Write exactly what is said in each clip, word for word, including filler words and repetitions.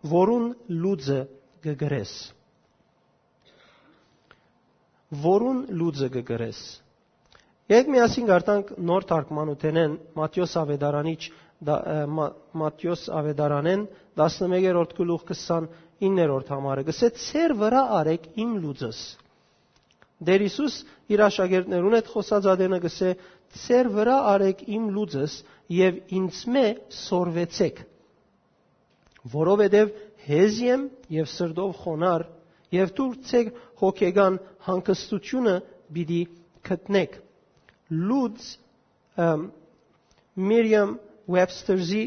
Որուն լուծը կը գրես։ Որուն լուծը կը գրես։ Եկ միասին գարտանք նոր թարգմանութենեն Մատթէոս Ավետարանիչ, դա, ը, Մա-, Մատթէոս Ավետարանեն, տասնմեկերորդ գլուխ քսանիններորդ համարը, կսե. «Ձեր վրայ արեք իմ լուծս»։ Տէր Յիսուս իր աշակերտներուն հետ խօսած ատենը կսե. «Ձեր վրայ արեք իմ լուծս եւ ինձմէ սորվեցէք, որովհետեւ հեզ եմ եւ սրտով խոնար, եւ դուք ձեր հոգեկան հանգստութիւնը պիտի գտնէք»։ Լուծ, ըմ, Միրիամ Ուեբսթերզի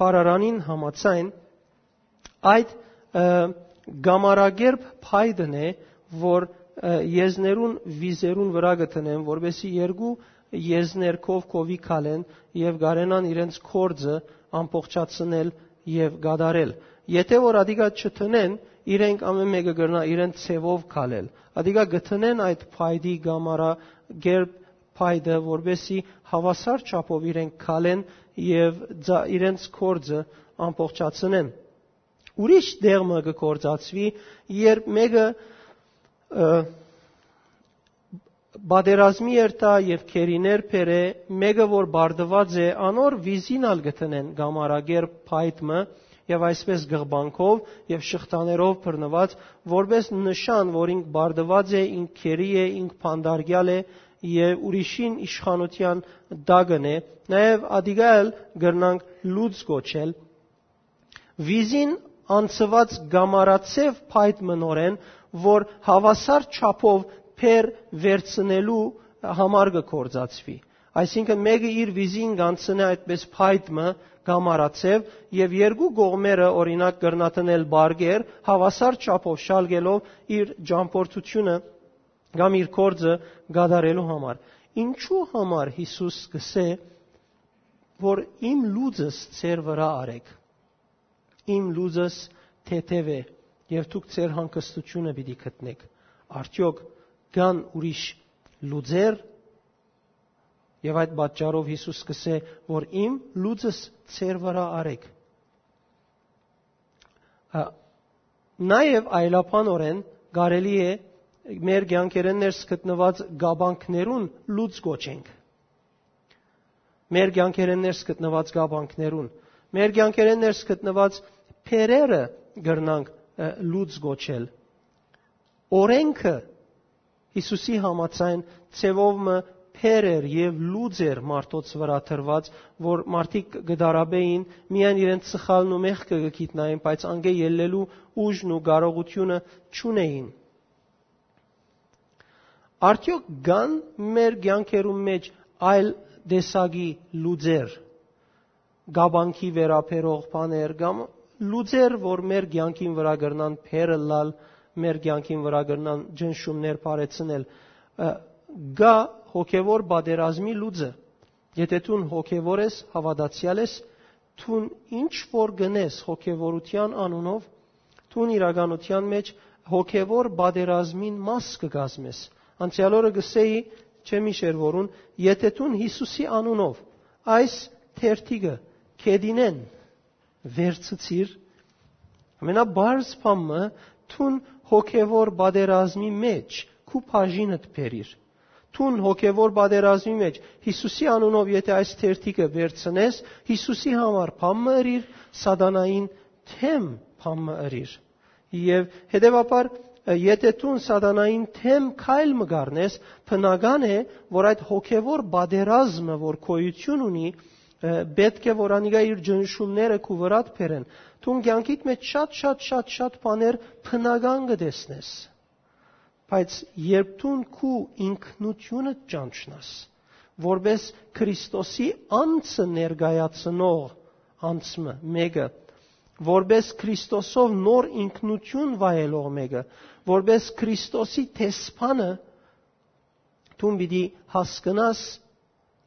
բառարանին համաձայն, այդ, ը, կամարակերպ փայտն է, որ, ը, եզներուն վիզերուն վրայ կը դնեն, որպեսզի երկու եզներ քով քովի քալեն եւ կարենան իրենց գործը ամբողջացնել եւ կատարել։ Եթէ որ ատիկա չդնեն, իրենք ամէն մէկը կրնայ իրենց ձեւով քալել։ Ատիկա կը դնեն այդ փայտի կամարակերպ փայտը, որպեսզի հաւասար չափով իրենք քալեն եւ ձա-, իրենց գործը ամբողջացնեն։ Ուրիշ տեղ մը կը գործածուի, երբ մէկը, ը, պատերազմի երթայ եւ գերիներ բերէ, մէկը որ պարտուած է, անոր վիզին ալ կը դնեն կամարակերպ փայտ մը, եւ այսպէս գղբանքով եւ շղթաներով բռնուած, որպէս նշան, որ ինք պարտուած է, ինք գերի է, ինք բանտարկեալ է եւ ուրիշին իշխանութեան տակն է, նաեւ ատիկա ալ կրնանք լուծ կոչել։ Վիզին անցուած կամարացեւ փայտ մը նորեն, որ հաւասար չափով բեռ վերցնելու համար կը գործածուի։ Այսինքն, մէկը իր վիզին կ'անցնէ այդպէս փայտ մը կամարացեւ, եւ երկու կողմերը, օրինակ, կրնայ դնել պարկեր, հաւասար չափով շալկելով իր ճամբորդութիւնը կամ իր գործը կատարելու համար։ Ինչու համար Յիսուս կսե, որ «Իմ լուծս ձեր վրայ արեք»։ Իմ լուծս թեթեւ է, եւ դուք ձեր հանգստութիւնը պիտի գտնէք։ Արդեօք կան ուրիշ լուծեր, եւ այդ պատճառով Յիսուս կսե, որ «Իմ լուծս ձեր վրայ արեք»։ Ա, նաեւ այլաբանօրէն կարելի է մեր կեանքերէն ներս գտնուած կապանքներուն լուծ կոչենք։ Մեր կեանքերէն ներս գտնուած կապանքներուն, մեր կեանքերէն ներս գտնուած բեռերը կրնանք, ը, լուծ կոչել։ Օրէնքը Յիսուսի համաձայն ձեւով մը բեռ էր եւ լուծ էր մարդոց վրայ դրուած, որ մարդիկ կը դարաբէին, միայն իրենց սխալն ու մեղքը կը գիտնային, բայց անկէ ելլելու ուժն ու կարողութիւնը չունէին։ Արդեօք կան մեր կեանքերուն մէջ այլ տեսակի լուծեր, կապանքի վերաբերող բաներ կամ լուծեր, որ մեր կեանքին վրայ կրնան բեռ ըլլալ, մեր կեանքին վրայ կրնան ճնշումներ բարձրացնել։ Ը, կայ հոգեւոր պատերազմի լուծը։ Եթէ դուն հոգեւոր ես, հաւատացեալ ես, դուն ինչ որ կ'ընես հոգեւորութեան անունով, դուն իրականութեան մէջ հոգեւոր պատերազմին մաս կը կազմես։ Անցեալ օրը կ'ըսէի, չեմ յիշեր որուն, եթէ դուն Յիսուսի անունով այս թերթիկը գետինէն վերցուցիր, ամենապարզ բան մը, դուն հոգեվոր պատերազմի մէջ քու բաժինդ բերիր։ Դուն հոգեվոր պատերազմի մէջ Յիսուսի անունով եթէ այս թերթիկը վերցնես, Յիսուսի համար բան մը ըրիր, սատանային դէմ բան մը ըրիր։ Եւ հետեւաբար, եթէ դուն սատանային դէմ քայլ մը կ'առնես, բնական է, որ այդ հոգեվոր պատերազմը, որ գոյություն ունի, ը, պէտք է որ անիկա իր ճնշումները քու վրադ բերեն։ Դուն կեանքիդ մէջ շատ, շատ, շատ, շատ բաներ բնական կը տեսնես։ Բայց երբ դուն քու ինքնութիւնդ ճանչնաս, որպէս Քրիստոսի անձը ներկայացնող անձ մը, մէկը, որպէս Քրիստոսով նոր ինքնութիւն վայելող մէկը, որպէս Քրիստոսի դեսպանը, դուն պիտի հասկնաս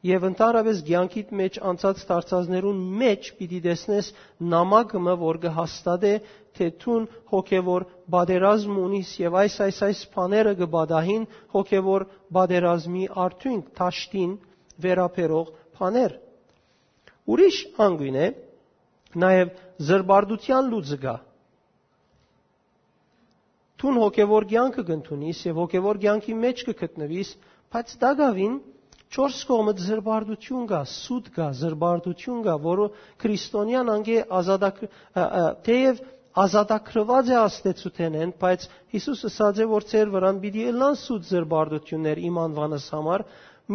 եւ ընդհանրապես կեանքիդ մէջ անցած դարձածներուն մէջ պիտի տեսնես նամակը մը, որ կը հաստատէ, թէ դուն հոգեվոր պատերազմ ունիս եւ այս, այս, այս բաները կը պատահին հոգեվոր պատերազմի արդիւնք, դաշտին վերաբերող բաներ։ Ուրիշ անգույն է, Նաեւ զրպարտութեան լուծը կայ։ Դուն հոգեւոր կեանքը կ'ընդունիս եւ հոգեւոր կեանքի մէջ կը գտնուիս, բայց տակաւին չորս կողմը զրպարտություն կայ, սուտ կայ, զրպարտություն կայ, որը քրիստոնեան անկէ ազատակ-, ը, ը, թեեւ ազատագրուած է աստեցութենէն, բայց Յիսուս ըսած է, որ ձեր վրան պիտի ըլլան սուտ զրպարտություններ իմ անուանս համար,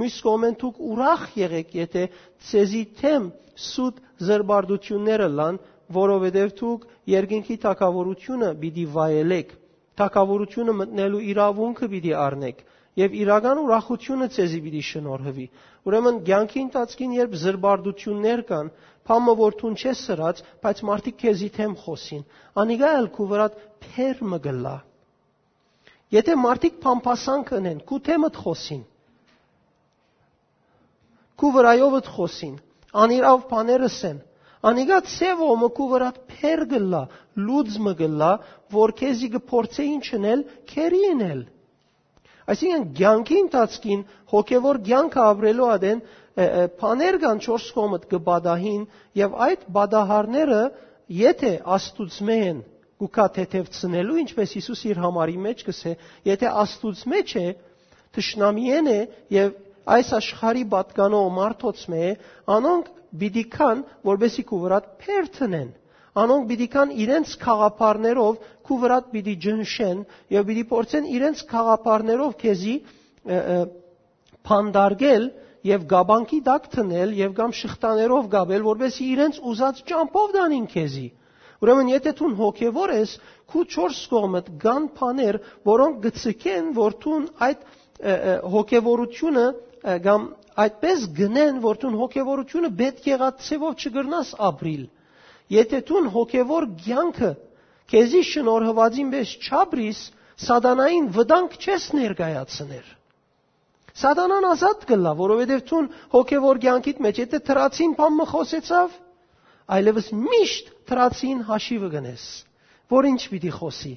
միւս կողմէն դուք ուրախ եղէք, եթէ ձեզի դէմ սուտ զրպարտություններ ըլլան, որովհետեւ դուք երկնքի թագաւորութիւնը պիտի վայելէք, թագաւորութիւնը մտնելու իրաւունքը պիտի առնէք եւ իրական ուրախութիւնը ձեզի պիտի շնորհուի։ Ուրեմն կեանքի ընթացքին, երբ զրպարտություններ կան, բան մը որ դուն չես սրած, բայց մարդիկ քեզի դէմ խօսին, անիկա ալ քու վրադ փեր մը կ'ըլլայ։ Եթէ մարդիկ բամբասանք ընեն, քու դէմդ խօսին, քու վրայովդ խօսին, անիրաւ բաներ ըսեն, անիկա ձեւ ո մը քու վրադ փեր կ'ըլլայ, լուծ մը կ'ըլլայ, որ քեզի կը փորձէ ինչ ընել, քերի ընել։ Այսինքն, կեանքի ընթացքին հոգեվոր կեանքը ապրելու ատեն, ը, ը, բաներ կան չորս կողմդ կը պատահին, եւ այդ պատահարները, եթէ Աստուծմէ են, կու գայ թեթեւցնելու, ինչպես Յիսուս իր համարի մէջ կ'ըսէ, եթէ Աստուծմէ չէ, թշնամիէն է եւ այս աշխարհի պատկանող մարդոցմէ է, անոնք պիտի գան, որպեսզի քու վրադ փեր դնեն։ Անոնք պիտի գան իրենց գաղափարներով քու վրադ պիտի ճնշեն եւ պիտի փորձեն իրենց գաղափարներով քեզի, ը, ը, փանդարգել եւ կապանքի տակ դնել եւ կամ շղթաներով կապել, որպեսզի իրենց ուզած ճամբով տանին քեզի։ Ուրեմն, եթէ դուն հոգեվոր ես, քու չորս կողմդ կան բաներ, որոնք կը ցկեն, որ դուն այդ, ը, ը, հոգեվորությունը, ը, կամ այդպես գնեն, որ դուն հոգեվորությունը պէտք եղած ձևով չկրնաս ապրիլ։ Եթէ դուն հոգեվոր կեանքը քեզի շնորհուածին պէս չապրիս, սատանային վտանգ չես ներկայացներ։ Սատանան ազատ կ'ըլլայ, որովհետեւ դուն հոգեվոր կեանքիդ մէջ, եթէ դրացին բան մը խօսեցաւ, այլեւս միշտ դրացին հաշիվը կ'ընես, որ ինչ պիտի խօսի։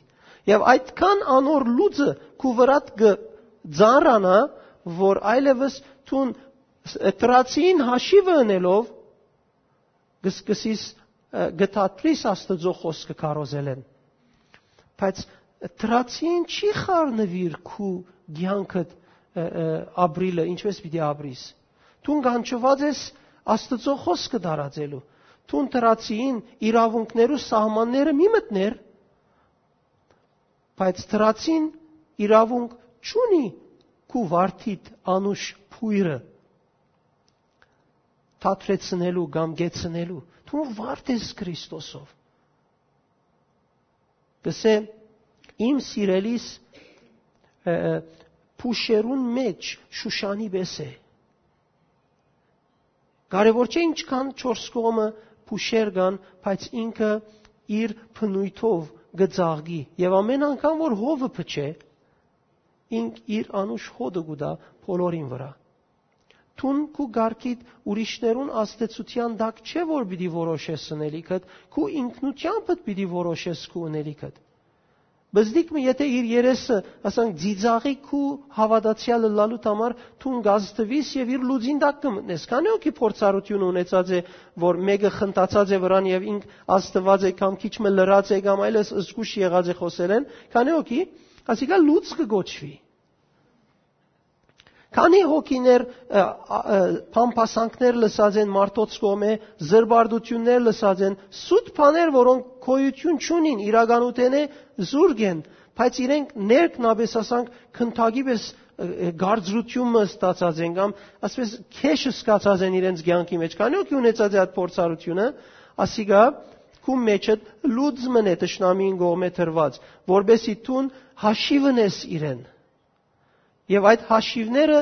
Եւ այդքան անոր լուծը քու վրադ կը ծանրանայ, որ այլեւս դուն ս-, դրացին հաշիվը ընելով կը սկսիս, ը, կը դադրիս Աստուծոյ խօսքը քարոզելէն։ Բայց դրացին չի խառնուիր քու կեանքդ, ը, ը, ապրիլը, ինչպես պիտի ապրիս։ Դուն կանչուած ես Աստուծոյ խօսքը տարածելու։ Դուն դրացին իրաւունքներու սահմանները մի մտներ, բայց դրացին իրաւունք չունի քու վարդիդ անուշ փոյրը դադրեցնելու կամ կեցնելու։ Դու վարդ ես Քրիստոսով։ Կսե, իմ սիրելիս, ը, ը, փուշերուն մէջ Շուշանի պէս է։ Կարեւոր չէ ինչքան չորս կողմը փուշեր կան, բայց ինքը իր բնույթով կը ծաղկի։ Եւ ամեն անգամ որ հովը փչէ, ինք իր անուշ հոտը կու տայ բոլորին վրայ։ Դուն քու կարգիդ ուրիշներուն ազդեցութեան տակ չէ, որ պիտի որոշես ընելիքդ, քու ինքնութեամբդ պիտի որոշես քու ընելիքդ։ Բզդիկ մը, եթէ իր երեսը, ասենք, ծիծաղի քու հաւատացեալ ըլլալուդ համար, դուն կազդուիս եւ իր լուծին տակ կը մտնես։ Քանի՞ հոգի փորձառութիւնը ունեցած է, որ մէկը խնդացած է վրան եւ ինք ազդուած է կամ քիչ մը լռած է կամ այլս զգուշ եղած է խօսելէն, քանի՞ հոգի, ասիկա լուծ կը կոչուի։ Քանի՞ հոգիներ, ը, ա, ը, բամբասանքներ լսած են մարդոց կողմէ, զրպարտություններ լսած են, սուտ բաներ, որոնք գոյութիւն չունին, իրականութենէ զուրկ են, բայց իրենք ներքնապէս, ասանք, քնթակի պէս, ը, ը, գարձրութիւն մը ստացած են կամ, ասես, քեշ սկացած են իրենց կեանքի մէջ։ Քանի՞ հոգի ունեցած է այդ փորձառութիւնը, ասիկա քու մեջդ լուծ մըն է թշնամին կողմէ տրված, որպեսզի դուն հաշիվ ընես իրեն։ Եւ այդ հաշիվները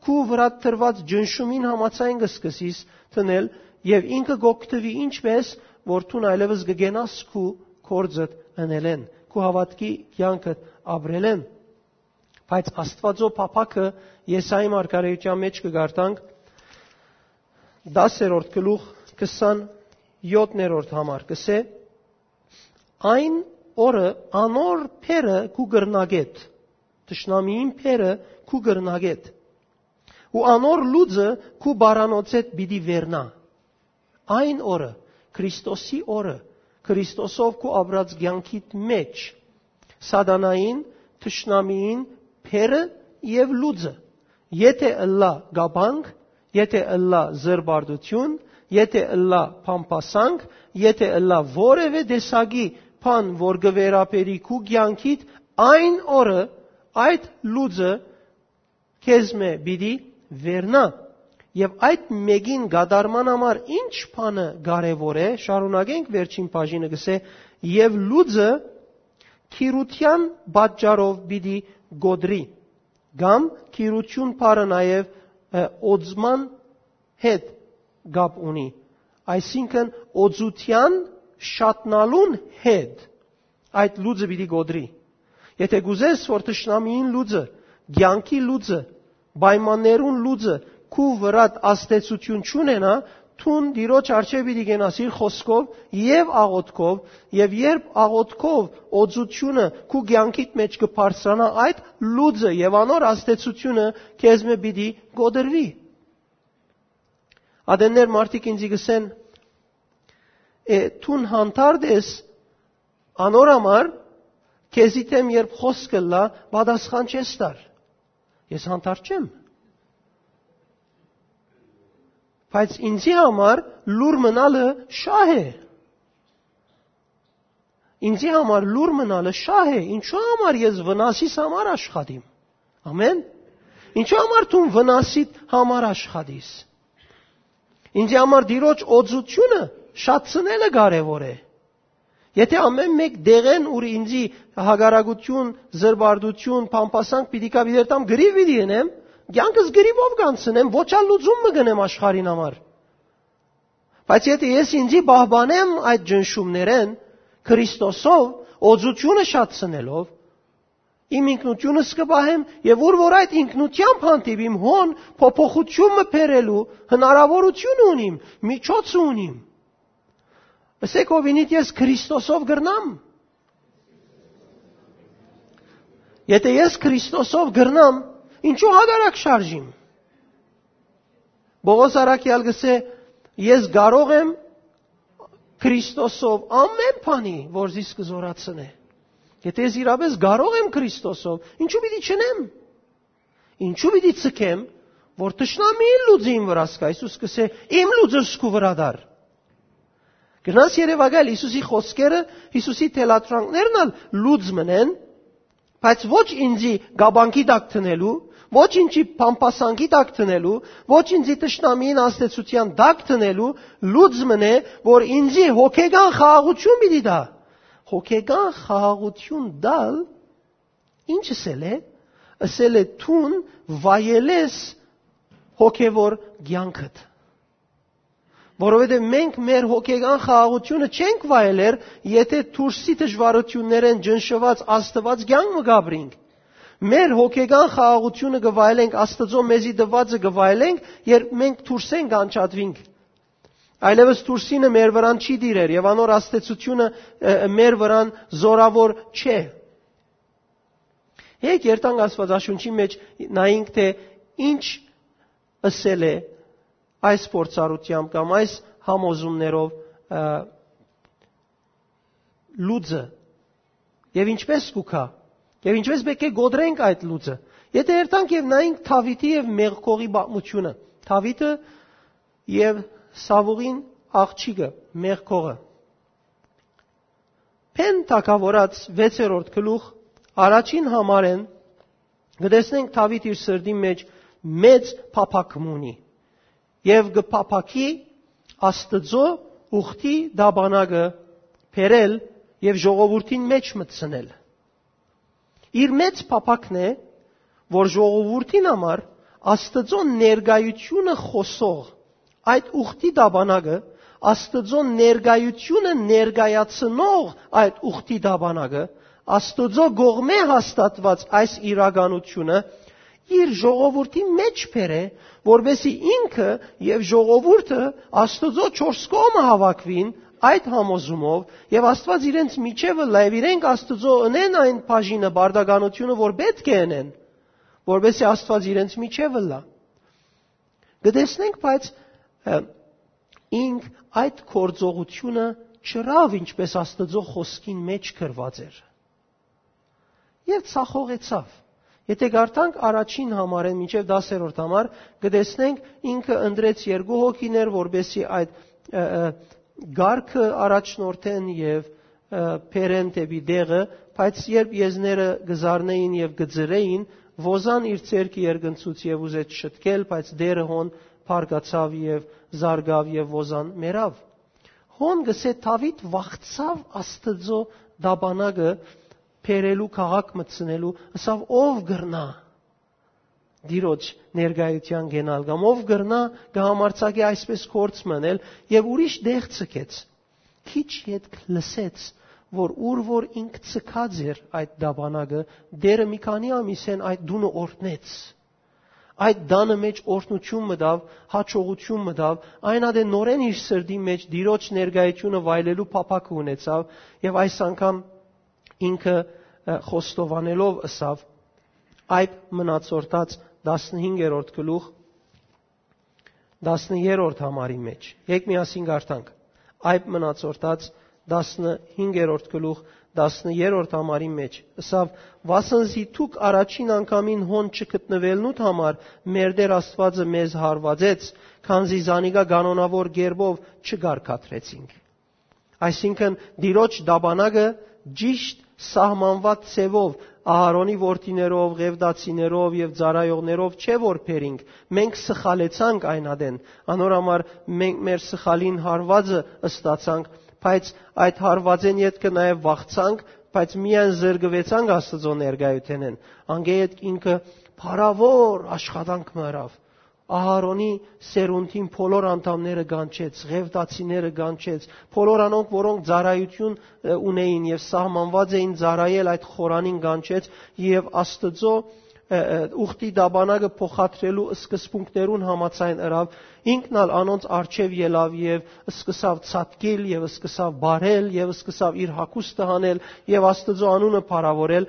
քու վրադ տրված ճնշումին համաձայն կը սկսիս դնել, եւ ինքը կ'օգտուի ինչպես, որ դուն այլեւս կը կենաս քու գործդ ընելէն, քու հաւատքի կեանքդ ապրելէն։ Բայց Աստուածոյ փափաքը Եսայի մարգարէութեան մէջ կը կարդանք, դասերորդ գլուխ, քսանեւթերորդ համար կսէ. «Այն օրը անոր փերը քու կրնակետ, թշնամիին փերը քու կրնակետ, ու անոր լուծը քու բարանոցեդ պիտի վերնայ»։ Այն օրը, Քրիստոսի օրը, Քրիստոսով քու ապրած կեանքիդ մէջ, սատանային, թշնամիին, բեռը եւ լուծը, եթէ ըլլայ կապանք, եթէ ըլլայ զրպարտութիւն, եթէ ըլլայ բամբասանք, եթէ ըլլայ որեւէ տեսակի բան, որ կը վերաբերի քու կեանքիդ, այն օրը այդ լուծը քեզմէ պիտի վերնայ։ Եւ այդ մէկին կատարման համար ի՞նչ բանը կարեւոր է, շարունակենք, վերջին բաժինը կ'ըսէ. «Եւ լուծը գիրութեան պատճառով պիտի կոտրի», կամ գիրութիւն բառը նաեւ, ը, օծման հետ կապ ունի, այսինքն՝ օծութեան շատնալուն հետ այդ լուծը պիտի կոտրի։ Եթէ կ'ուզես, որ թշնամիին լուծը, կեանքի լուծը, պայմաններուն լուծը քու վրադ ազդեցութիւն չունենայ, դուն Տիրոջ առջեւ պիտի կենաս իր խօսքով եւ աղօթքով, եւ երբ աղօթքով օծութիւնը քու կեանքիդ մէջ կը բարձրանայ, այդ լուծը եւ անոր ազդեցութիւնը քեզմէ պիտի կոտրուի։ Ատեններ մարդիկ ինձի կ'ըսեն. «Է, դուն հանդարտ ես անոր համար, քեզի դէմ երբ խօսք ըլլայ, պատասխան չես տար»։ Ես հանդարտ չեմ։ Բայց ինձի համար լուր մնալը շահ է։ Ինձի համար լուր մնալը շահ է։ Ինչու համար ես վնասիս համար աշխատիմ։ Ամեն։ Ինչու համար դու վնասիդ համար աշխատիս։ Ինձի համար Տիրոջ օծութիւնը շատցնելը կարեւոր է։ Եթէ ամեն մէկ դեղեն, ուր ինձի հակառակութիւն, զրպարտութիւն, բամբասանք պիտի կա, պիտի երթամ, գրիվ պիտի ընեմ, կեանքս գրիվով կանցնեմ, ոչ ալ լուծում մը կ'ընեմ աշխարհին համար։ Բայց եթէ ես ինձի պահպանեմ այդ ճնշումներէն, Քրիստոսով, օծութիւնը շատցնելով, իմ ինքնութիւնս կը պահեմ, եւ ուր որ այդ ինքնութեամբ հանդիպիմ, հոն փոփոխութիւն մը բերելու հնարաւորութիւն ունիմ, միջոց ունիմ։ Ըսէք, հովինիդ, ես Քրիստոսով կրնամ։ Եթէ ես Քրիստոսով կրնամ, ինչու հակառակ շարժիմ։ Պողոս առաքեալ կ'ըսէ. «Ես կարող եմ Քրիստոսով ամեն բանի, որ զիս կը զորացնէ»։ Եթէ ես իրապէս կարող եմ Քրիստոսով, ինչու պիտի չընեմ։ Ինչու պիտի ցկեմ, որ թշնամիին լուծը իմ վրաս կայ։ Յիսուս կ'ըսէ. «Իմ լուծս քու վրադ առ»։ Գնաս երեւակայ Յիսուսի խօսքերը, Յիսուսի թելադրանքներն ալ լուծ մըն են, բայց ոչ ինձի կապանքի տակ դնելու, ոչ ինձի փամփասանքի տակ դնելու, ոչ ինձի թշնամիին ազդեցութեան տակ դնելու, լուծ մըն է, որ ինձի հոգեկան խաղաղութիւն պիտի տայ։ Հոգեկան խաղաղութիւն տալ ի՞նչ ըսել է։ Ըսել է. «Դուն վայելես հոգեվոր կեանքդ»։ Որովհետեւ մենք մեր հոգեկան խաղաղութիւնը չենք վայելեր, եթէ դուրսի դժվարութիւններէն ճնշուած Աստուած կեանք մը կ'ապրինք։ Մեր հոգեկան խաղաղութիւնը կը վայելենք, Աստուծոյ մեզի տուածը կը վայելենք, երբ մենք դուրսէն կ'անջատուինք։ Այլեւս դուրսինը մեր վրան չի տիրեր եւ անոր ազդեցութիւնը, ը, մեր վրան զորաւոր չէ։ Եկեք երթանք Աստուածաշունչի մէջ, նայենք, թէ ինչ ըսել է այս փորձառութեամբ կամ այս համոզումներով, ը, լուծը, եւ ինչպես կու գայ, եւ ինչպես պէտք է կոտրենք այդ լուծը։ Եթէ երթանք եւ նայենք Դաւիթի եւ Մեղքողի պատմութիւնը, Դաւիթը եւ Սաւուղին աղջիկը, Մեղքողը։ Բեն թագաւորաց վեցերորդ գլուխ, առաջին համարէն, կը տեսնենք Դաւիթ իր սրտին մէջ մեծ փափաք մը ունի եւ կը փափաքի Աստուծոյ ուխտի տապանակը բերել եւ ժողովուրդին մէջ մտցնել։ Իր մեծ փափաքն է, որ ժողովուրդին համար Աստուծոյ ներկայութիւնը խօսող այդ ուխտի տապանակը, Աստուծոյ ներկայութիւնը ներկայացնող այդ ուխտի տապանակը, Աստուծոյ կողմէ հաստատուած այս իրականութիւնը իր ժողովուրդի մէջ բերէ, որպեսզի ինքը եւ ժողովուրդը Աստուծոյ չորս կողմը հաւաքուին այդ համոզումով, եւ Աստուած իրենց միջեւը լայ, եւ իրենք Աստուծոյ ընեն այն բաժինը, պարտականութիւնը, որ պէտք է ընեն, որպեսզի Աստուած իրենց միջեւը լայ։ Կը տեսնենք, բայց, ը, ինք այդ գործողութիւնը չըրաւ, ինչպէս Աստուծոյ խօսքին մէջ գրուած էր։ Եւ ցախողեցաւ։ Եթէ կարդանք առաջին համարէն մինչեւ տասերորդ համար, կը տեսնենք ինքը ընտրեց երկու հոգիներ, որպեսզի այդ, ը, ը, կարգը առաջնորդեն եւ, ը, բերեն դէպի տեղը, բայց երբ եզները կը զարնէին եւ կը ծռէին, Ոզան իր ձեռքը երկնցուց եւ ուզեց շտկել, բայց Տէրը հոն բարկացաւ եւ զարկաւ եւ Ոզան մեռաւ։ Հոն կ'ըսէ Դաւիթ վախցաւ Աստուծոյ տապանակը բերելու, քաղաք մտցնելու, ըսաւ. «Ո՞վ կրնայ Տիրոջ ներկայութեան կենալ, կամ ո՞վ կրնայ կը համարձակի այսպէս գործ մընել»։ Եւ ուրիշ տեղ ձգեց։ Քիչ ետք լսեց, որ ուր որ ինք ձգած էր այդ տապանակը, Տէրը մի քանի ամիսէն այդ տունը օրհնեց։ Այդ տանը մէջ օրհնութիւն մտաւ, յաջողութիւն մտաւ, այն ատեն նորէն իր սրտի մէջ Տիրոջ ներկայութիւնը վայելելու փափաքը ունեցաւ եւ այս անգամ ինքը, ը, խոստովանելով ըսաւ. «Այդ մնացորդաց» տասնհինգերորդ գլուխ, տասներորդ համարի մէջ։ Եկեք միասին կարդանք։ Այդ մնացորդաց տասնհինգերորդ գլուխ, տասներորդ համարի մէջ։ Ըսաւ. «Վասն զի դուք առաջին անգամին հոն չգտնուելնուդ համար մեր Տէր Աստուածը մեզ հարուածեց, քանզի զանիկա կանոնաւոր կերպով չկարգադրեցինք»։ Այսինքն՝ Տիրոջ տապանակը ճիշտ սահմանուած ձևով Ահարոնի որդիներով, ղեւտացիներով եւ ծառայողներով չէ որ բերինք, մենք սխալեցանք այն ատեն, անոր համար մենք մեր սխալին հարուածը ստացանք, բայց այդ հարուածէն ետքը նաեւ վախցանք, բայց միայն զրկուեցանք Աստուծոյ ներկայութենէն։ Անկէ ետք ինքը փառաւոր աշխատանք մը ըրաւ։ Ահարոնի սերունդին բոլոր անդամները կանչեց, ղեւտացիները կանչեց, բոլոր անոնք, որոնք ծառայութիւն, ը, ունէին եւ սահմանուած էին ծառայել այդ խորանին, կանչեց եւ Աստուծոյ, ը, ը, ուխտի տապանակը փոխադրելու սկզբունքներուն համաձայն ըրաւ, ինքն ալ անոնց առջեւ ելաւ եւ սկսաւ ցատկիլ եւ սկսաւ բարել եւ սկսաւ իր հագուստը հանել եւ Աստուծոյ անունը փառաւորել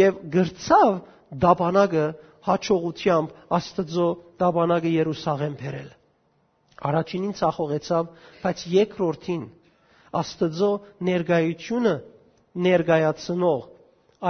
եւ կրցաւ տապանակը յաջողութեամբ Աստուծոյ տապանակը Երուսաղէմ բերել։ Առաջինին ցախողեցաւ, բայց երկրորդին Աստուծոյ ներկայութիւնը ներկայացնող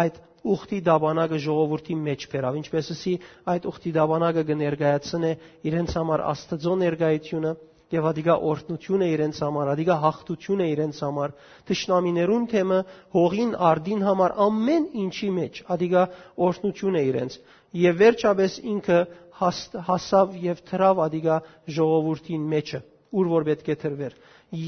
այդ ուխտի տապանակը ժողովուրդին մէջ բերաւ։ Ինչպէս ըսի, այդ ուխտի տապանակը կը ներկայացնէ իրենց համար Աստուծոյ ներկայութիւնը եւ ատիկա օրհնութիւն է իրենց համար, ատիկա յաղթութիւն է իրենց համար, թշնամիներուն դէմը հողին արտին համար ամէն ինչի մէջ, ատիկա օրհնութիւն է իրենց։ Եւ վերջապէս ինքը հաս-, հասաւ եւ դրաւ ատիկա ժողովուրդին մէջը, ուր որ պէտք է դրուէր։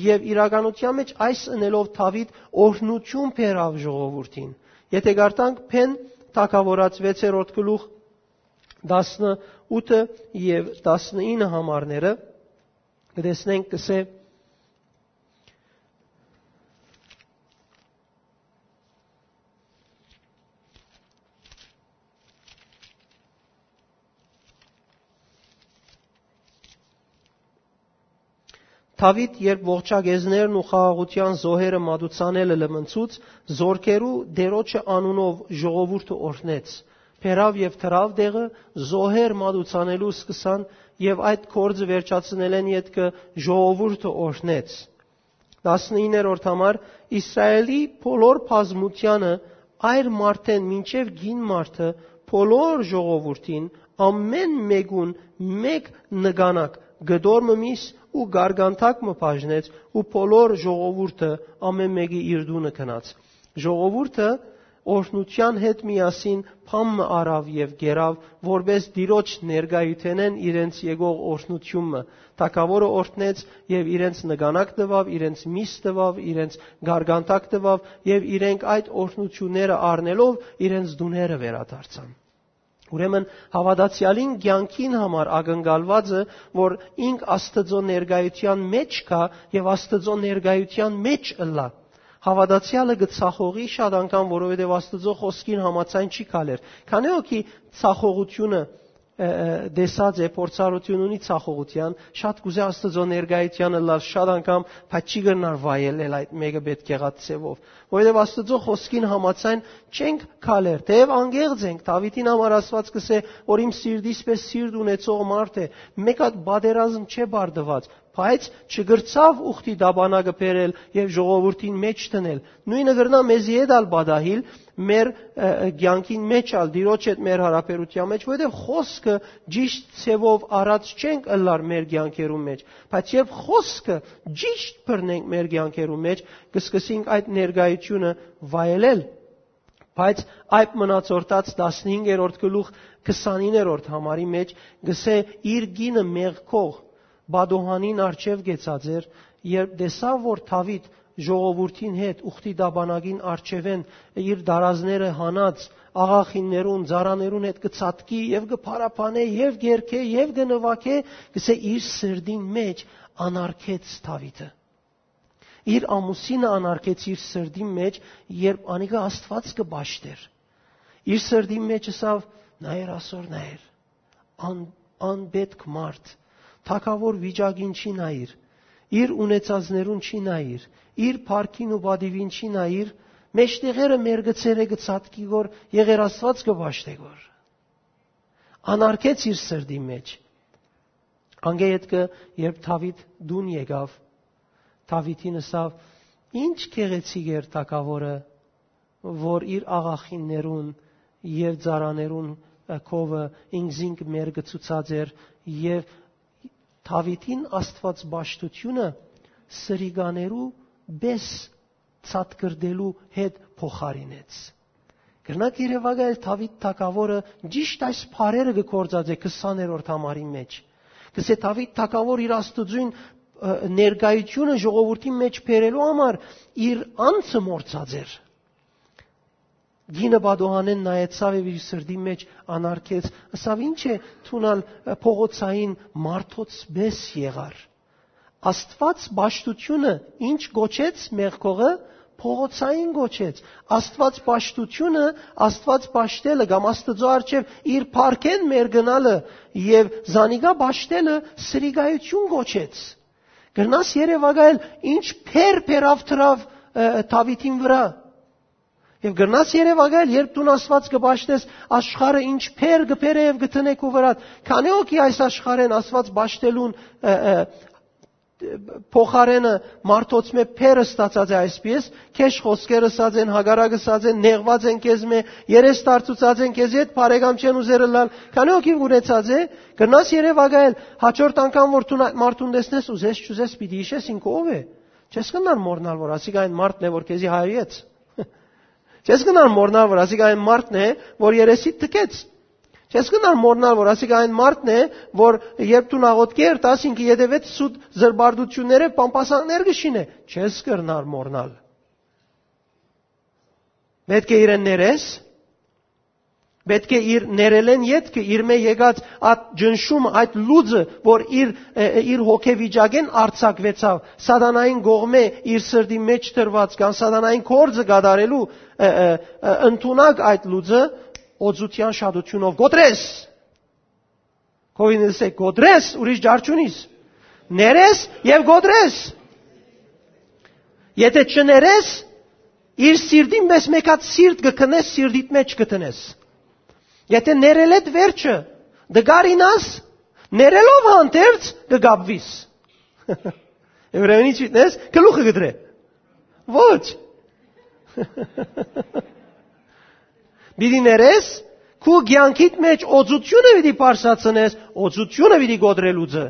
Եւ իրականութեան մէջ այս ընելով Դաւիթ օրհնութիւն բերաւ ժողովուրդին։ Եթէ կարդանք Բեն թագաւորաց վեցերորդ գլուխ տասնութը եւ տասնինը համարները, կը տեսնենք, կ'ըսէ. Դաւիթ, երբ ողջակեզներն ու խաղաղութեան զոհերը մատուցանելը լմնցուց, զորքերու Տէրոջը անունով ժողովուրդը օրհնեց, բերաւ եւ դրաւ տեղը, զոհեր մատուցանելու սկսան եւ այդ գործը վերջացնելէն ետքը ժողովուրդը օրհնեց։ Տասնիններորդ համար. Իսրայէլի բոլոր բազմութեանը, այր մարդէն մինչեւ կին մարդը, բոլոր ժողովուրդին, ամէն մէկուն մէկ նկանակ, կտոր մը միս ու գարգանթակ մը բաժնեց ու բոլոր ժողովուրդը ամէն մէկի իր տունը գնաց։ Ժողովուրդը օրհնութեան հետ միասին բան մը առաւ եւ կերաւ, որպէս Տիրոջ ներկայութենէն իրենց եկող օրհնութիւն մը։ Թագաւորը օրհնեց եւ իրենց նկանակ տուաւ, իրենց միս տուաւ, իրենց գարգանթակ տուաւ եւ իրենք այդ օրհնութիւնները առնելով իրենց տուները վերադարձան։ Ուրեմն հաւատացեալին կեանքին համար ակնկալուածը, որ ինք Աստուծոյ ներկայութեան մէջ գայ եւ Աստուծոյ ներկայութեան մէջ ըլլայ։ Հաւատացեալը կը ցախողի շատ անգամ, որովհետեւ Աստուծոյ խօսքին համաձայն չի քալեր։ Քանի՞ հոգի ցախողութիւնը, ը, ը, տեսած է, փորձառութիւն ունի ցախողութեան, շատ կ'ուզէ Աստուծոյ ներկայութեան ըլլալ շատ անգամ, բայց չի կրնար վայելել այդ մէկը պէտք եղած ձեւով։ Որովհետեւ Աստուծոյ խօսքին համաձայն չենք քալեր, թէեւ անկեղծ ենք։ Դաւիթին համար Աստուած կ'ըսէ, որ իմ սիրտիս պէս սիրտ ունեցող մարդ է, մէկ հատ պատերազմ չէ բարդուած, բայց չկրցաւ ուխտի տապանակը բերել եւ ժողովուրդին մէջ դնել։ Նոյնը կրնայ մեզի հետ ալ պատահիլ, մեր, ը, ը, կեանքին մէջ ալ, Տիրոջ հետ մեր հարաբերութեան մէջ, որովհետեւ խօսքը ճիշդ ձեւով առած չենք ըլլար մեր կեանքերուն մէջ, բայց երբ խօսքը ճիշդ բռնենք մեր կեանքերուն մէջ, կսկսենք այդ ներկայությունը վայելել։ Բայց այդ մնացորդած տասնհինգերորդ գլուխ քսանիններորդ համարի մէջ գսէ. «Իր կինը մեղքող Բադոհանին առջեւ կեցած էր, երբ տեսաւ որ Դաւիթ ժողովուրդին հետ ուխտի տապանակին առջեւէն իր դարազները հանած աղախիններուն, ծառաներուն հետ կը ցատկի եւ կը փարապանէ եւ կ'երգէ եւ կը նուագէ, գսէ, իր սրտին մէջ անարգեց Դաւիթը»։ Իր ամուսինը անարգեց իր սրտին մէջ, երբ անիկա Աստուած կը պաշտէր։ Իր սրտին մէջ ըսաւ. «Նայեր, ասոր նայեր, ան-, անպետք մարդ, թագաւոր վիճակին չի նայիր, իր ունեցածներուն չի նայիր, իր փառքին ու պատիւին չի նայիր, մէջտեղերը մեր գցերը կը ցատկի գոր, եղեր Աստուած կը պաշտէ գոր»։ Անարգեց իր սրտին մէջ։ Անկէ ետքը, երբ Դաւիթ տուն եկաւ, Դաւիթին ըսաւ. «Ինչ գեղեցիկ էր թագաւորը, որ իր աղախիններուն եւ ծառաներուն, ը, քովը ինքզինք մեր գցուցած էր, եւ Դաւիթին Աստուած պաշտութիւնը սրիկաներու պէս ցատկրտելու հետ փոխարինեց»։ Կրնաք երեւակայել Դաւիթ թագաւորը ճիշդ այս բառերը կը գործածէ քսաներորդ համարին մէջ։ Կսէ Դաւիթ թագաւոր իր Աստուծոյն, ը, ներկայությունը ժողովուրդին մէջ բերելու համար իր անձը մոռցած էր։ Կինը պատուհանէն նայեցաւ եւ իր սրտին մէջ անարգեց, ըսաւ. «Ինչ է, դուն ալ, ը, փողոցային մարդոց պէս եղար»։ Աստուած պաշտութիւնը ինչ կոչեց մեղքողը, փողոցային կոչեց։ Աստուած պաշտութիւնը, Աստուած պաշտելը կամ Աստուծոյ առջեւ իր փառքէն մեր գնալը եւ զանիկա պաշտելը սրիկայութիւն կոչեց։ Կրնաս երեւակայել ինչ փեր փերաւ դրաւ, ը, Դաւիթին վրայ։ Եւ կրնաս երեւակայել, երբ դուն Աստուած կը պաշտես, աշխարհը ինչ փեր կը բերէ եւ կը դնէ քու վրադ։ Քանի՞ հոգի այս աշխարհէն Աստուած պաշտելուն, ը, ը, փոխարէնը մարդոց մէ փեր ստացած է այսպէս, քեշ խօսքեր ըսած են, հակառակ ըսած են, նեղուած են քեզ մէ, երես դարձուցած են քեզ, ետ բարեկամ չեն ուզեր ըլլալ, քանի՞ հոգի ունեցած է, կրնաս երեւակայել, հաջորդ անգամ որ դուն այդ մարդուն տեսնես, ուզես չուզես պիտի յիշես ինքը ով է։ Չես կրնար մոռնալ որ ասիկա այն մարդն է որ քեզի հայոյեց։ Չես կրնար մոռնալ որ ասիկա այն մարդն է որ երեսիդ թքեց։ Չես կրնար մոռնալ որ ասիկա այն մարդն է որ երբ դու աղօթք երթաս, ինքը ետեւեց սուտ զրպարտութիւններ եւ պամպասանքներ կը շինէ։ Չես կրնար մոռնալ։ Պետք է իրեն ներես, պետք է իր ներելեն ետքը, իր մէ եկած այդ ջնշումը, այդ լուծը, որ իր, ը, ը, իր հոգեվիճակէն արձակուեցաւ, սատանային կողմէ իր սրտի մէջ դրուած, կամ սատանային գործը կատարելու, ը, ը, ը, ընդունակ այդ լուծը, օծութեան շատութիւնով կոտրես։ Քովին ըսե, կոտրես, ուրիշ ջար չունիս։ Ներես եւ կոտրես։ Եթե չներես, իր սիրտին մեզ մեկ հատ սիրտ կը քնես, սիրտիդ մեջ կը տնես։ Եթե ներելեդ վերջը դգարինաս, ներելով հանդերձ կը գապվիս։ Եբրայերուն ինչ մտնես, գլուխը կդրե։ Ոչ։ Պիտի ներես, քու կեանքիդ մեջ օծութիւնը պիտի պարսացնես, օծութիւնը պիտի կոտրել ուծը։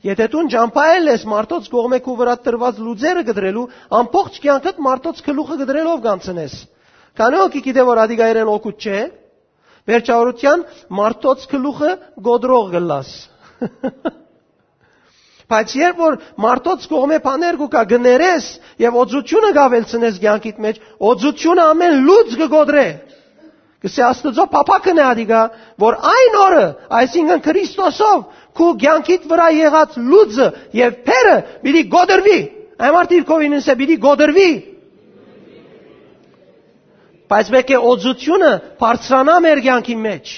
Եթե դուն ճամբայել ես մարդոց կողմէ քու վրադ դրուած լուծերը կդրելու, ամբողջ կեանքդ մարդոց գլուխը կդրելով կանցնես։ Քանի՞ հոգի գիտէ որ ադիկայերեն օգուտ չէ, վերջավորութեան մարդոց գլուխը կոտրող կլաս։ Բայց երբ որ մարդոց կողմէ բաներ կու կա, կներես եւ օծութիւնը կավելցնես կեանքիդ մեջ, օծութիւնը ամէն լուծ կը կոտրէ։ Կսե Աստուծոյ փափաքն է ադիկա, որ այն օրը, այսինքն Քրիստոսով, քու կեանքիդ վրայ եղած լուծը եւ փերը պիտի կոտրուի։ Այն մարդը իր քովին ըսե պիտի կոտրուի։ Բայց մէկ է օծութիւնը բարձրանայ մեր կեանքի մեջ։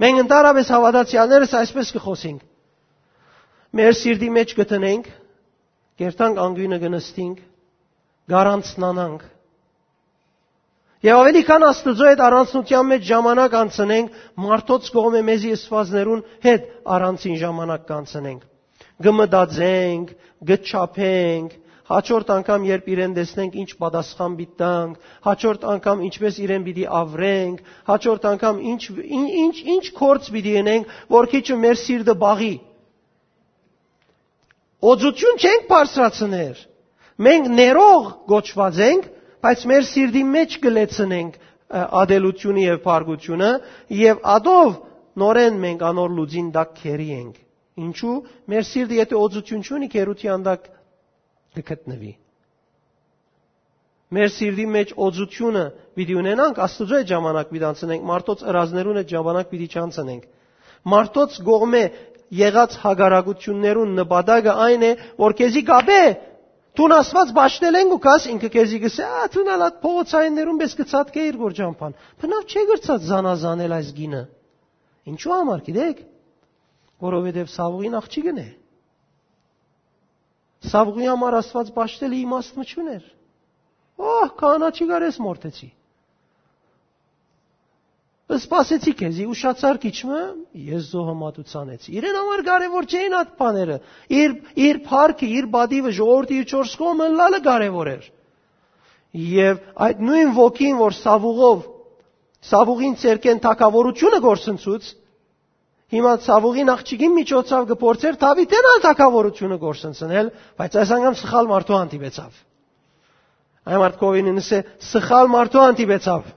Մենք ընդհանրապես հաւատացեալներս այսպես կը խօսենք. մեր սիրտի մեջ կը տնենք, կերտանք անկիւնը կը նստինք, կառանցնանանք։ Եւ ավելի քան Աստուծոյ հետ առանցնութեան մեջ ժամանակ անցնենք, մարդոց կողմէ մեզի ըսուածներուն հետ առանցին ժամանակ կանցնենք։ Կը մտածենք, կը չափենք, հաջորդ անգամ, երբ իրեն տեսնենք, ինչ պատասխան պիտի տանք, հաջորդ անգամ ինչպես իրեն պիտի ավրենք, հաջորդ անգամ ինչ, ինչ, ինչ, ինչ գործ պիտի ընենք, որ քիչը մեր սիրտը բաղի։ Օծութիւն չենք բարձրացներ։ Մենք ներող կոչուած ենք, բայց մեր սիրտի մէջ կը լեցնենք, ը, ատելութիւնը եւ փառքութիւնը, եւ ատով նորէն մենք անոր լուծին տակ քերի ենք։ Ինչու՞։ Մեր սիրտը, եթէ օծութիւն չունի, քերութեան տակ կը գտնուի։ Մեր սիրտի մէջ օծութիւնը պիտի ունենանք, Աստուծոյ հետ ժամանակ պիտի անցնենք, մարդոց ըրազներուն հետ ժամանակ պիտի չանցնենք։ Մարդոց կողմէ եղած հակառակութիւններուն նպատակը այն է, որ քեզի կապէ, դուն Աստուած պաշտել ենք ու կաս, ինքը քեզի կսէ, «Ա, դուն ալ այդ փողոցայիններուն պէս կը ցատկէիր գոր ճամփան։ Բնավ չէ՞ կրցած զանազանել այս գինը»։ Ինչու համար, գիտեք։ Որովհետեւ Սաւուղին աղջիկն է։ Սաւուղի համար Աստուած պաշտելը իմաստ մը չունէր։ Օհ, քահանա չի գար, ես մորթեցի։ Սպասեցի քեզի, ուշացար քիչ մը, ես զոհը մատուցանեցի։ Իրեն համար կարեւոր չէին այդ բաները։ Իր, իր փառքը, իր պատիվը, ժողովուրդը, իր չորս կողմը ըլլալը կարեւոր էր։ Եւ այդ նոյն ոգին, որ Սաւուղով, Սաւուղին ցերկեն թագաւորութիւնը գործընծուց, հիմա Սաւուղին աղջիկին միջոցով կը փորձեր Դաւիթէն ալ թագաւորութիւնը գործընծնել, բայց այս անգամ սխալ մարդու հանդիպեցաւ։ Այն մարդկովին ինձ է, սխալ մարդու հանդիպեցաւ։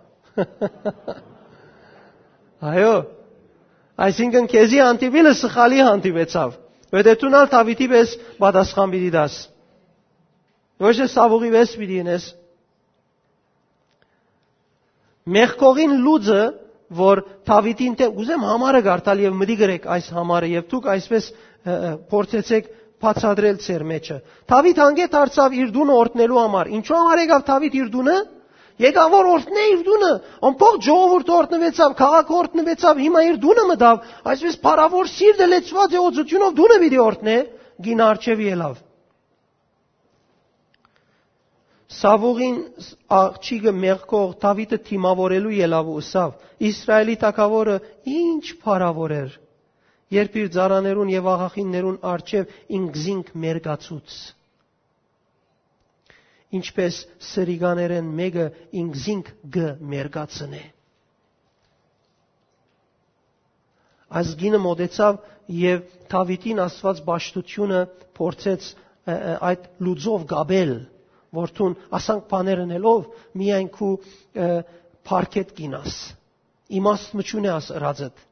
Այո, այսինքն քեզի հանդիպիլը սխալի հանդիպեցաւ, որտեղ դուն ալ Դաւիթի պէս պատասխան պիտի տաս։ Ոչ թե Սաւուղի պէս պիտի ինես։ Մեղքողին լուծը, որ Դաւիթին դէմ, ուզեմ համարը կարդալ եւ մտի գրեք այս համարը, եւ դուք այսպես, ը, ը, փորձեցեք բացատրել ձեր մեջը։ Դաւիթ հանգէ դարձաւ իր տունը օրհնելու համար։ Ինչու համար եկաւ Դաւիթ իր տունը։ Եկաւ որ օրհնէ իր տունը, ամբողջ ժողովուրդը օրհնուեցաւ, քաղաքը օրհնուեցաւ, հիմա իր տունը մտաւ, այսպես փառաւոր սիրտը լեցուած է օծութիւնով, տունը պիտի օրհնէ, գինը առջեւի ելաւ։ Սաւուղին աղջիկը մեղքող Դաւիթը դիմաւորելու ելաւ ու ըսաւ. «Իսրայէլի թագաւորը ինչ փառաւոր էր, երբ իր ծառաներուն եւ աղախիններուն առջեւ ինքզինք մերկացուց, ինչպես սրիկաներէն մէկը ինքզինք կը մերկացնէ»։ Այս գինը մոտեցաւ եւ Դաւիթին Աստուած պաշտութիւնը փորձեց, ը, ը, այդ լուծով կապել, որ դուն ասանք բաներ ընելով միայն քու, ը, փառքետ կինաս, իմաստ մը չունի աս ըրածդ,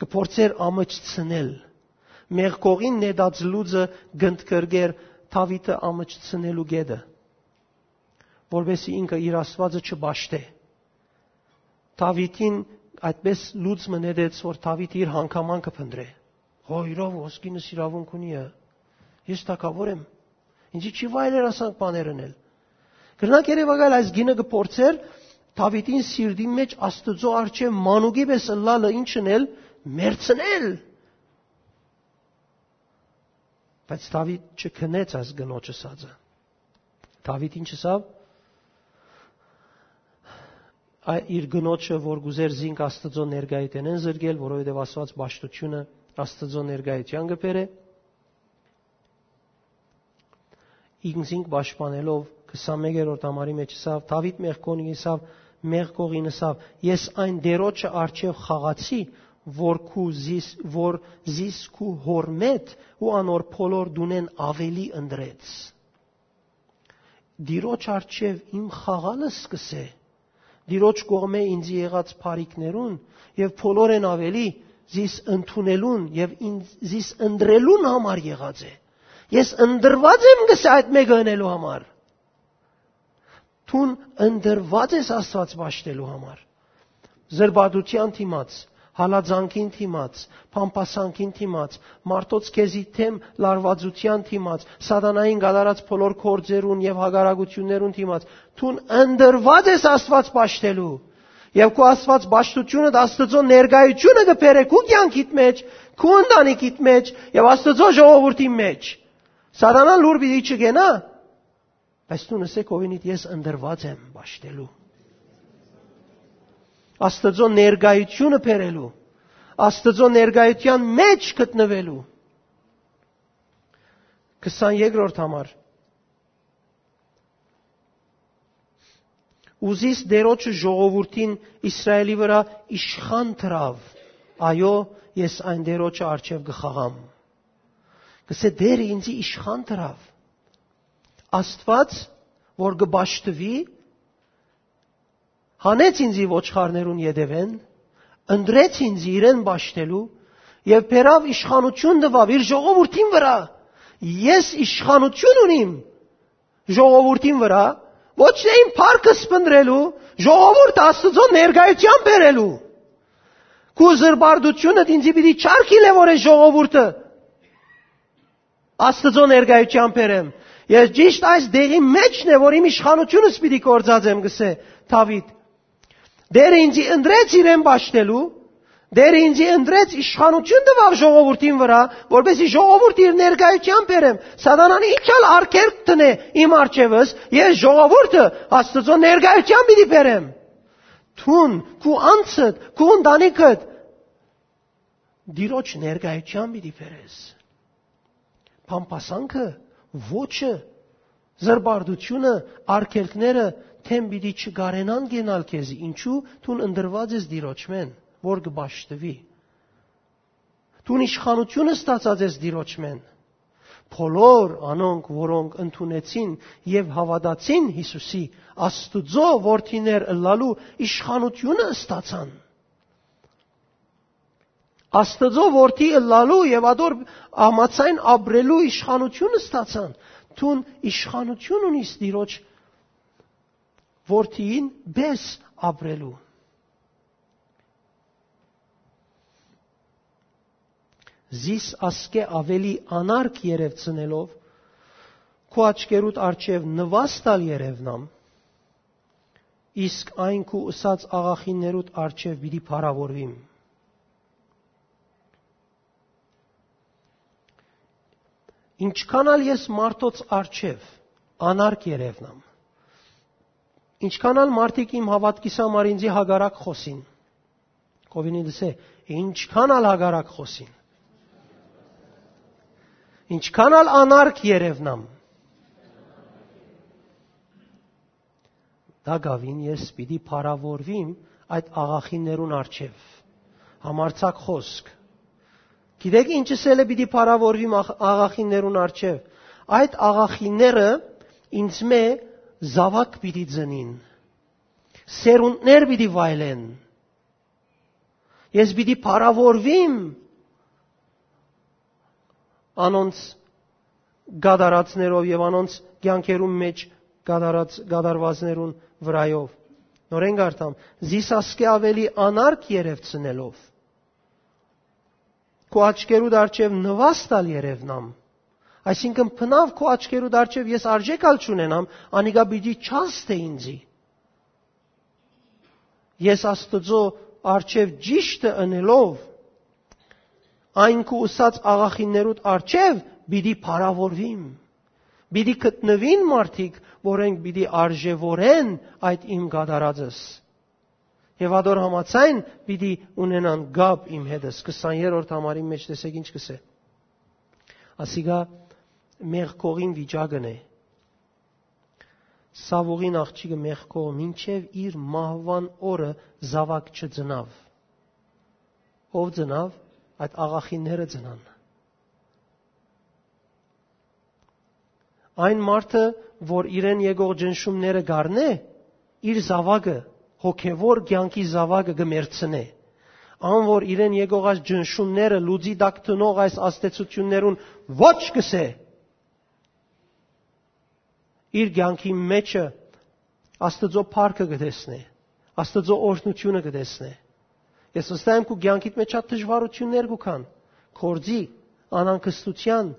կը փորձեր ամջցնել։ Մեղքողին նետած լուծը կընդգրկեր Դաւիթը ամջցնելու գետը, որպեսզի ինքը իր Աստուածը չպաշտէ։ Դաւիթին այդպես լուծ մը նետեց, որ Դաւիթ իր հանգամանքը փնտրէ։ Հո, իրով ոսկինս իրավունք ունի ը։ Ես թագաւոր եմ։ Ինձի չի վայելեր ասանք բաներ ընել։ Կրնակ երևակայել այս գինը կը փորձեր Դաւիթին սիրտին մեջ Աստուծոյ առջեւ մանուկի պէս ըլլալը ինչ ընել, մերցնել։ Բայց Դաւիթ չքնեց այս կնոջը սածը։ Դաւիթ ինչ ըսաւ։ Ա-, իր կնոջը, որ կուզեր զինք Աստուծոյ ներկայութենէն զրկել, որովհետեւ Աստուած պաշտութիւնը Աստուծոյ ներկայութեան կը բերէ, ինքզինք պաշտպանելով, քսանմեկերորդ համարի մեջ ըսաւ, Դաւիթ մեղքողին ըսաv, մեղքողին ըսաv. «Ես այն Տերոջը առջեւ խաղացի, որ քու զիս, որ զիս քու հորմետ ու անոր բոլոր դունեն ավելի ընտրեց»։ Տիրոջ առջեւ իմ խաղալը սկսե, Տիրոջ կողմէ ինձի եղած բարիքներուն եւ բոլորեն ավելի զիս ընդունելուն եւ ինձ, զիս ընտրելուն համար եղած է։ Ես ընտրված եմ, կսե, այդ մեկը ընելու համար։ Դուն ընտրված ես Աստված պաշտելու համար։ Զրպարտութեան դիմաց, հալածանքին դիմաց, բամբասանքին դիմաց, մարդոց քեզի դէմ լարվածութեան դիմաց, սատանային կատարած բոլոր գործերուն եւ հակառակություններուն դիմաց, դուն ընտրված ես Աստված պաշտելու։ Եւ քու Աստված պաշտութիւնը, Աստուծոյ ներկայութիւնը կը բերէ քու կեանքիդ մեջ, քու ընտանիքիդ մեջ եւ Աստուծոյ ժողովուրդի մեջ։ Սատանան լուր պիտի չգենայ, բայց դուն ըսե քովինիդ. «Ես ընտրված եմ պաշտելու, Աստուծոյ ներկայութիւնը բերելու, Աստուծոյ ներկայութեան մեջ գտնուելու»։ քսաներկրորդ համար։ Ուզիս Տէրոջը ժողովուրդին Իսրայէլի վրայ իշխան դրաւ։ Այո, ես այն Տէրոջը առջեւ կը խաղամ։ Կսե Տէրը ինձի իշխան դրաւ։ Աստուած, որ կը պաշտուի, հանեց ինձի ոչխարներուն ետեւէն, ընտրեց ինձի իրեն պաշտելու եւ բերաւ իշխանութիւն տուաւ իր ժողովուրդին վրայ։ Ես իշխանութիւն ունիմ ժողովուրդին վրայ, ոչ թե իմ փառքը սփնտրելու, ժողովուրդը Աստուծոյ ներկայութեան բերելու։ Քու զրպարտութիւնդ ինձի պիտի չարգիլէ, որ այս ժողովուրդը Աստուծոյ ներկայութեան բերեմ։ Ես ճիշդ այս դեղի մէջն է, որ իմ իշխանութիւնս պիտի գործածեմ, կսե Դաւիթ։ Տէրը ինձի ընտրեց իրեն պաշտելու, Տէրը ինձի ընտրեց, իշխանութիւն տուաւ ժողովուրդին վրայ, որպեսզի ժողովուրդը իր ներկայութեան բերեմ։ Սատանան ինչ ալ արգելք դնէ իմ առջեւս, ես ժողովուրդը Աստուծոյ ներկայութեան պիտի բերեմ։ Դուն, քու անձդ, քու ընտանիքդ Տիրոջ ներկայութեան պիտի բերես։ Բամբասանքը, ոճը, զրպարտութիւնը, արգելքները դէմ պիտի չկարենան կենալ քեզի։ Ինչու՞, դուն ընտրուած ես Տիրոջմէն, որ կը պաշտուի։ Դուն իշխանութիւնը ստացած ես Տիրոջմէն։ Բոլոր անոնք, որոնք ընդունեցին եւ հաւատացին Յիսուսի, Աստուծոյ որդիներ ըլլալու իշխանութիւնը ստացան։ Աստուծոյ որդի ըլլալու եւ ատոր համաձայն ապրելու իշխանութիւն ստացան։ Դուն իշխանութիւն ունիս Տիրոջ որդիին պէս ապրելու։ Զիս ասկէ աւելի անարգ երեւցնելով, քու աչքերուդ առջեւ նուաստալ երեւնամ, իսկ այն քու ըսած աղախիններուդ առջեւ պիտի փառաւորուիմ։ Ինչքան ալ ես մարդոց առջեւ անարգ երեւնամ, ինչքան ալ մարդիկ իմ հաւատքիս համար ինձի հակառակ խօսին, կովինի դսե, ինչքան ալ հակառակ խօսին, ինչքան ալ անարգ երեւնամ, տակաւին ես պիտի փառաւորուիմ այդ աղախիններուն առջեւ։ Համարձակ խօսք։ Գիտեք ինչ ըսել է պիտի փառաւորուիմ աղ-, աղախիններուն առջեւ։ Այդ աղախինները ինձմէ զաւակ պիտի ծնին, սերունդներ պիտի վայելեն։ Ես պիտի փառաւորուիմ անոնց կատարածներով եւ անոնց կեանքերուն մէջ կատարած, կատարուածներուն վրայով։ Նորէն կարդամ. «Զիս ասկէ աւելի անարգ երեւցնելով, քու աչքերուդ առջեւ նուաստալ երեւնամ»։ Այսինքն, բնաւ քու աչքերուդ առջեւ ես արժէք ալ չունենամ, անիկա պիտի չազդէ ինձի։ Ես Աստուծոյ առջեւ ճիշդը ընելով, այն քու ըսած աղախիններուդ առջեւ պիտի փառաւորուիմ։ Պիտի գտնուին մարդիկ, որոնք պիտի արժեւորեն այդ իմ կատարածս։ Եւ ատոր համաձայն պիտի ունենան կապ իմ հետս։ Քսաներորդ համարին մէջ տեսեք ինչ կսէ։ Ասիկա մեղքողին վիճակն է։ Սաւուղին աղջիկը մեղքող մինչեւ իր մահուան օրը զաւակ չծնաւ։ Ո՞վ ծնաւ, այդ աղախինները ծնան։ Այն մարդը, որ իրեն եկող ճնշումները կ'առնէ, իր զաւակը, հոգեւոր կեանքի զաւակը կը մեռցնէ։ Ան, որ իրեն եկող այս ճնշումները լուծի տակ դնող այս ազդեցություններուն ոչ կսէ, իր կեանքի մէջը Աստուծոյ փառքը կը տեսնէ, Աստուծոյ օրհնութիւնը կը տեսնէ։ Ես վստահ եմ, քու կեանքիդ մէջ շատ դժուարութիւններ կու գան, գործի, անհանգստութեան,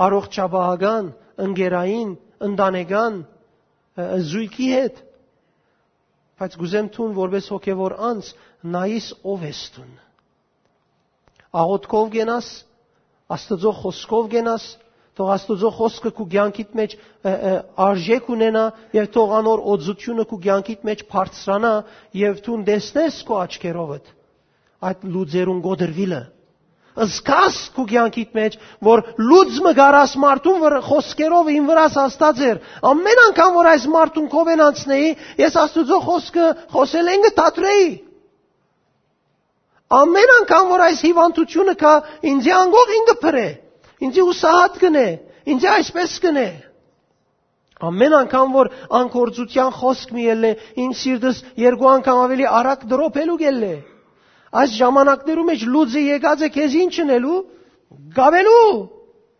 առողջապահական, ընկերային, ընտանեկան, ը, զոյգի հետ, բայց կ'ուզեմ դուն, որպէս հոգեւոր անձ, նայիս ով ես դուն։ Աղօթքով կենաս, Աստուծոյ խօսքով կենաս, թող Աստուծոյ խօսքը քու կեանքիդ մէջ, ը, ը, արժէք ունենայ եւ թող անոր օծութիւնը քու կեանքիդ մէջ բարձրանայ եւ դուն տեսնես քու աչքերովդ այդ լուծերուն կոտրուիլը, Զգաս քու կեանքիդ մէջ, որ լուծ մը գարաս մարդուն վր-, խօսքերով ին վրաս հաստած էր։ Ամեն անգամ որ այս մարդուն քովեն անցնեի, ես Աստուծոյ խօսքը խօսելէն կը դադրեի։ Ամեն անգամ որ այս հիվանդութիւնը կայ, ինձի անգող ինքը փրէ, ինձի ուսահատ կնէ, ինձի այսպես կնէ։ Ամեն անգամ որ անկործութեան խօսք մի ելլէ, իմ սիրտս երկու անգամ աւելի արագ դրոփելու կ'ելլէ։ Այս ժամանակներու մէջ լուծը եկած է քեզ ինչ ընելու, գաւելու,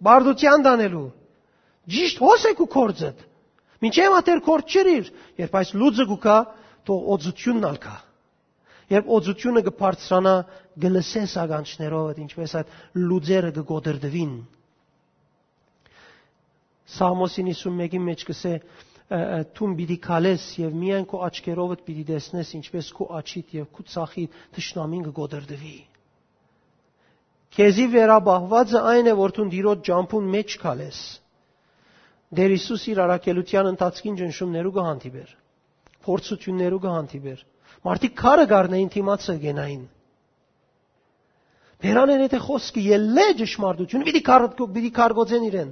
բարդութեան տանելու։ Ճիշդ հոս է քու կորձդ։ Մինչեւ ատեր կորձ չըրիր, երբ այս լուծը կու կայ, թող օծութիւնն ալ կայ։ Երբ օծութիւնը կը բարձրանայ, կը լսես ականջներովդ, ինչպես այդ լուծերը կը կոտրտուին։ Սաղմոսին հիսուն մէկին մէջ կ'ըսէ, ը, ը, «Դուն պիտի քալես եւ միայն քու աչքերովդ պիտի տեսնես, ինչպես քու աջիդ եւ քու ձախիդ թշնամին կը կոտրտուի»։ Քեզի վերապահուածը այն է, որ դուն Տիրոջ ճամբուն մէջ քալես։ Տէր Յիսուս իր առաքելութեան ընթացքին ճնշումներու կը հանդիպէր, փորձութիւններու կը հանդիպէր։ Մարդիկ քարը կառնէին դիմացը կենային։ Բերանեն եթե խոսքը ելլէ ճշմարտություն, պիտի քար-, պիտի քարկոծեն իրեն։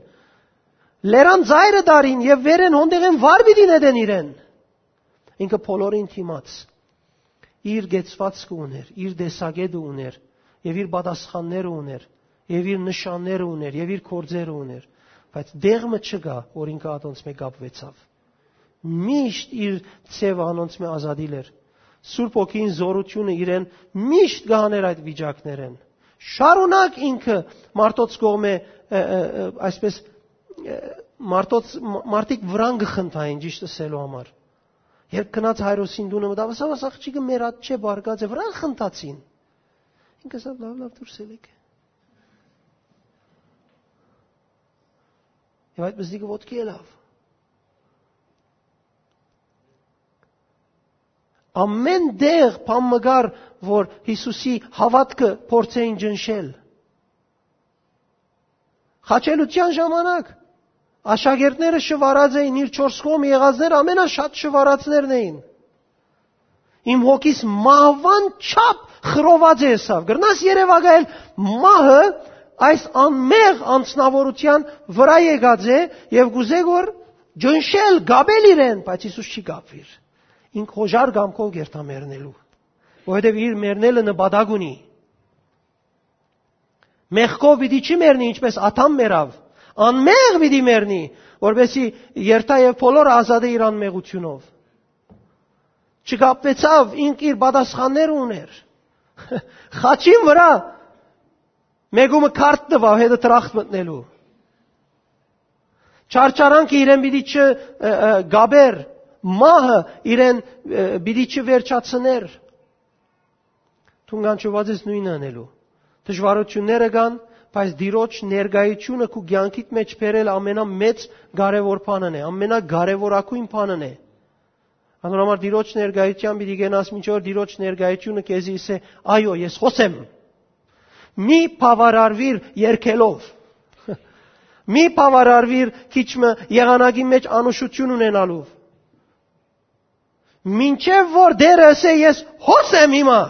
Լերան ծայրը դարին եւ վերեն հոնդեղեն վար պիտի նետեն իրեն։ Ինքը բոլորին դիմաց իր կեցվածքը ուներ, իր տեսակետը ուներ եւ իր պատասխանները ուներ եւ իր նշանները ուներ եւ իր գործերը ուներ, բայց դեղ մը չկայ, որ ինքը ատոնց մէ կապուեցաւ։ Միշտ իր ձևը անոնց մէ ազատիլ էր։ Սուրբ Հոգին զորութիւնը իրեն միշտ կը հաներ այդ վիճակներէն։ Շարունակ ինքը մարդոց կողմէ, ը, ը, ը, այսպես, ը, մարդոց, մ-, մարդիկ վրան կը խնդային, ճիշտ ըսելու համար։ Երբ գնաց Հայրոսին տունը մտավ, ասաւ, «Աս աղջիկը մեր ատչէ բարկած է, վրան խնդացին»։ Ինքը ասաւ, «Լաւ, լաւ, դուրս ելեք»։ Եւ այդ մզնիկը ոտքի ելաւ։ Ամեն տեղ բան մը կար, որ Յիսուսի հաւատքը փորձեին ճնշել։ Խաչելութեան ժամանակ աշակերտները շվարած էին, իր չորս կողմը եղածներ ամենաշատ շվարածներն էին։ Իմ հոգիս մահուան չափ խռոված է եսաւ։ Կրնաս երևակայել մահը այս անմեղ անձնավորութեան վրայ եկած է եւ կուզէ որ ճնշել, կապել իրեն, բայց Յիսուս չի կապուիր։ Ինք հոժար կամքով կերթայ մեռնելու, որովհետեւ իր մեռնելը նպատակ ունի։ Մեղքով պիտի չի մեռնի, ինչպես Ադամ մեռաւ, անմեղ պիտի մեռնի, որպեսզի երթայ եւ բոլորը ազատէ իր անմեղութիւնով։ Չկապուեցաւ, ինք իր պատասխանները ուներ։ Խաչին վրայ մէկումը քարտ տուաւ հետը դրախտ մտնելու։ Չարչարանքը իրեն պիտի չ-, ը, ը, գաբեր, մահը իրեն, ը, պիտի չվերջացներ։ Դուն կանչուած ես նոյնը ընելու։ Դժուարութիւնները կան, բայց Տիրոջ ներկայությունը քու կեանքիդ մէջ բերել ամենամեծ կարեւոր բանն է, ամենակարեւորագույն բանն է։ Անոր համար Տիրոջ ներկայութեան պիտի գնաս, մինչ որ Տիրոջ ներկայությունը քեզի ըսէ, «Այո, ես խօսեմ»։ Մի բաւարարուիր երկելով։ Մի բաւարարուիր քիչ մը եղանակի մէջ անուշութիւն ունենալով։ Մինչեւ որ Տէրը ըսէ, «Ես հոս եմ հիմա,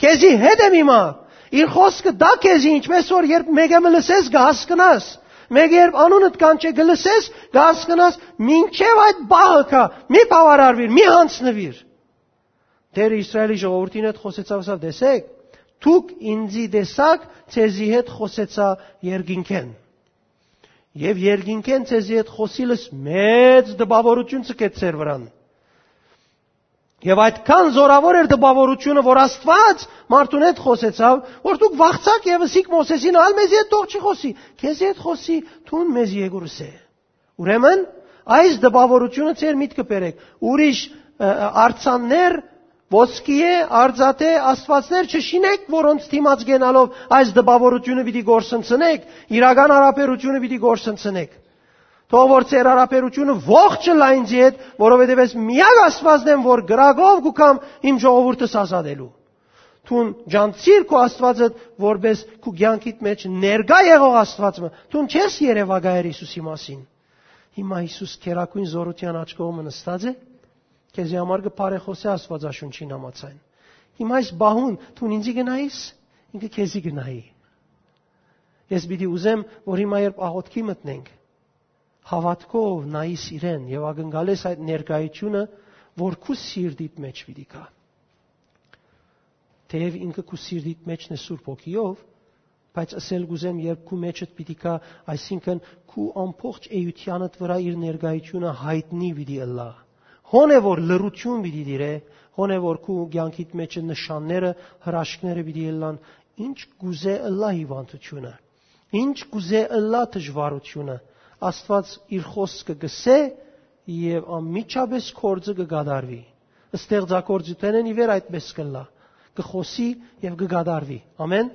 քեզի հետ եմ հիմա», իր խօսքը տայ քեզի, ինչպես որ երբ մէկը մը լսես, կը հասկնաս, մէկը երբ անունդ կանչէ, կը լսես, կը հասկնաս, մինչեւ այդ պահը կայ, մի բաւարարուիր, մի յանձնուիր։ Տէրը Իսրայէլի ժողովուրդին հետ խօսեցաւ, ասաւ, «Տեսէք, դուք ինծի տեսաք, ձեզի հետ խօսեցայ երկինքէն։ Եւ երկինքէն ձեզի հետ խօսիլս մեծ տպաւորութիւն ձգեց ձեր վրան։ Եւ այդքան զորաւոր էր տպաւորութիւնը, որ Աստուած մարդուն հետ խօսեցաւ, որ դուք վախցաք եւ ըսիք Մովսէսին, ալ մեզի հետ թող չի խօսի, քեզի հետ խօսի, դուն մեզի եկուր ըսէ»։ Ուրեմն, այս տպաւորութիւնը ձեր միտքը բերեք։ Ուրիշ, ը, ը, արձաններ, ոսկիէ, արծաթէ, աստուածներ չշինեք, որոնց դիմաց գնալով այս տպաւորութիւնը պիտի կորսնցնեք, իրական յարաբերութիւնը պիտի կորսնցնեք։ Թող որ ձեր յարաբերութիւնը ողջ ըլլայ ինձի հետ, որովհետեւ ես միակ Աստուածն եմ, որ կրակով կու կամ իմ ժողովուրդս ազատելու։ Դուն ջանցիր քու Աստուածը, որպես քու կեանքիդ մէջ ներկայ եղող Աստուած մը։ Դուն չես երևակայեր Յիսուսի մասին։ Հիմա Յիսուս քերագույն զորութեան աջ կողմը նստած է, քեզի համար կը բարեխօսէ Աստուածաշունչին համաձայն։ Հիմա այս պահուն դուն ինձի կը նայիս, ինքը քեզի կը նայի։ Ես պիտի ուզեմ, որ հիմա երբ աղոթքի մտնենք, հաւատքով նայիս իրեն եւ ակնկալես այդ ներկայությունը, որ քու սիրտիդ մեջ պիտի գայ։ Թեեւ ինքը քու սիրտիդ մէջն է Սուրբ Հոգիով, բայց ըսել կ'ուզեմ, երբ քու մեջդ պիտի գայ, այսինքն՝ քու ամբողջ էութեանդ վրայ իր ներկայությունը յայտնի պիտի ըլլայ։ Հոն է որ լռութիւն պիտի տիրէ, հոն է որ քու կեանքիդ մէջ նշանները, հրաշքները պիտի ըլլան, ինչ կ'ուզէ ըլլայ հիւանդութիւնը, ինչ կ'ուզէ ըլլայ դժուարութիւնը, Աստուած իր խօսքը կ'ըսէ եւ անմիջապէս գործը կը կատարուի։ Ստեղծագործութենէն ի վեր այդպէս կ'ըլլայ, կը խօսի եւ կը կատարուի։ Ամէն։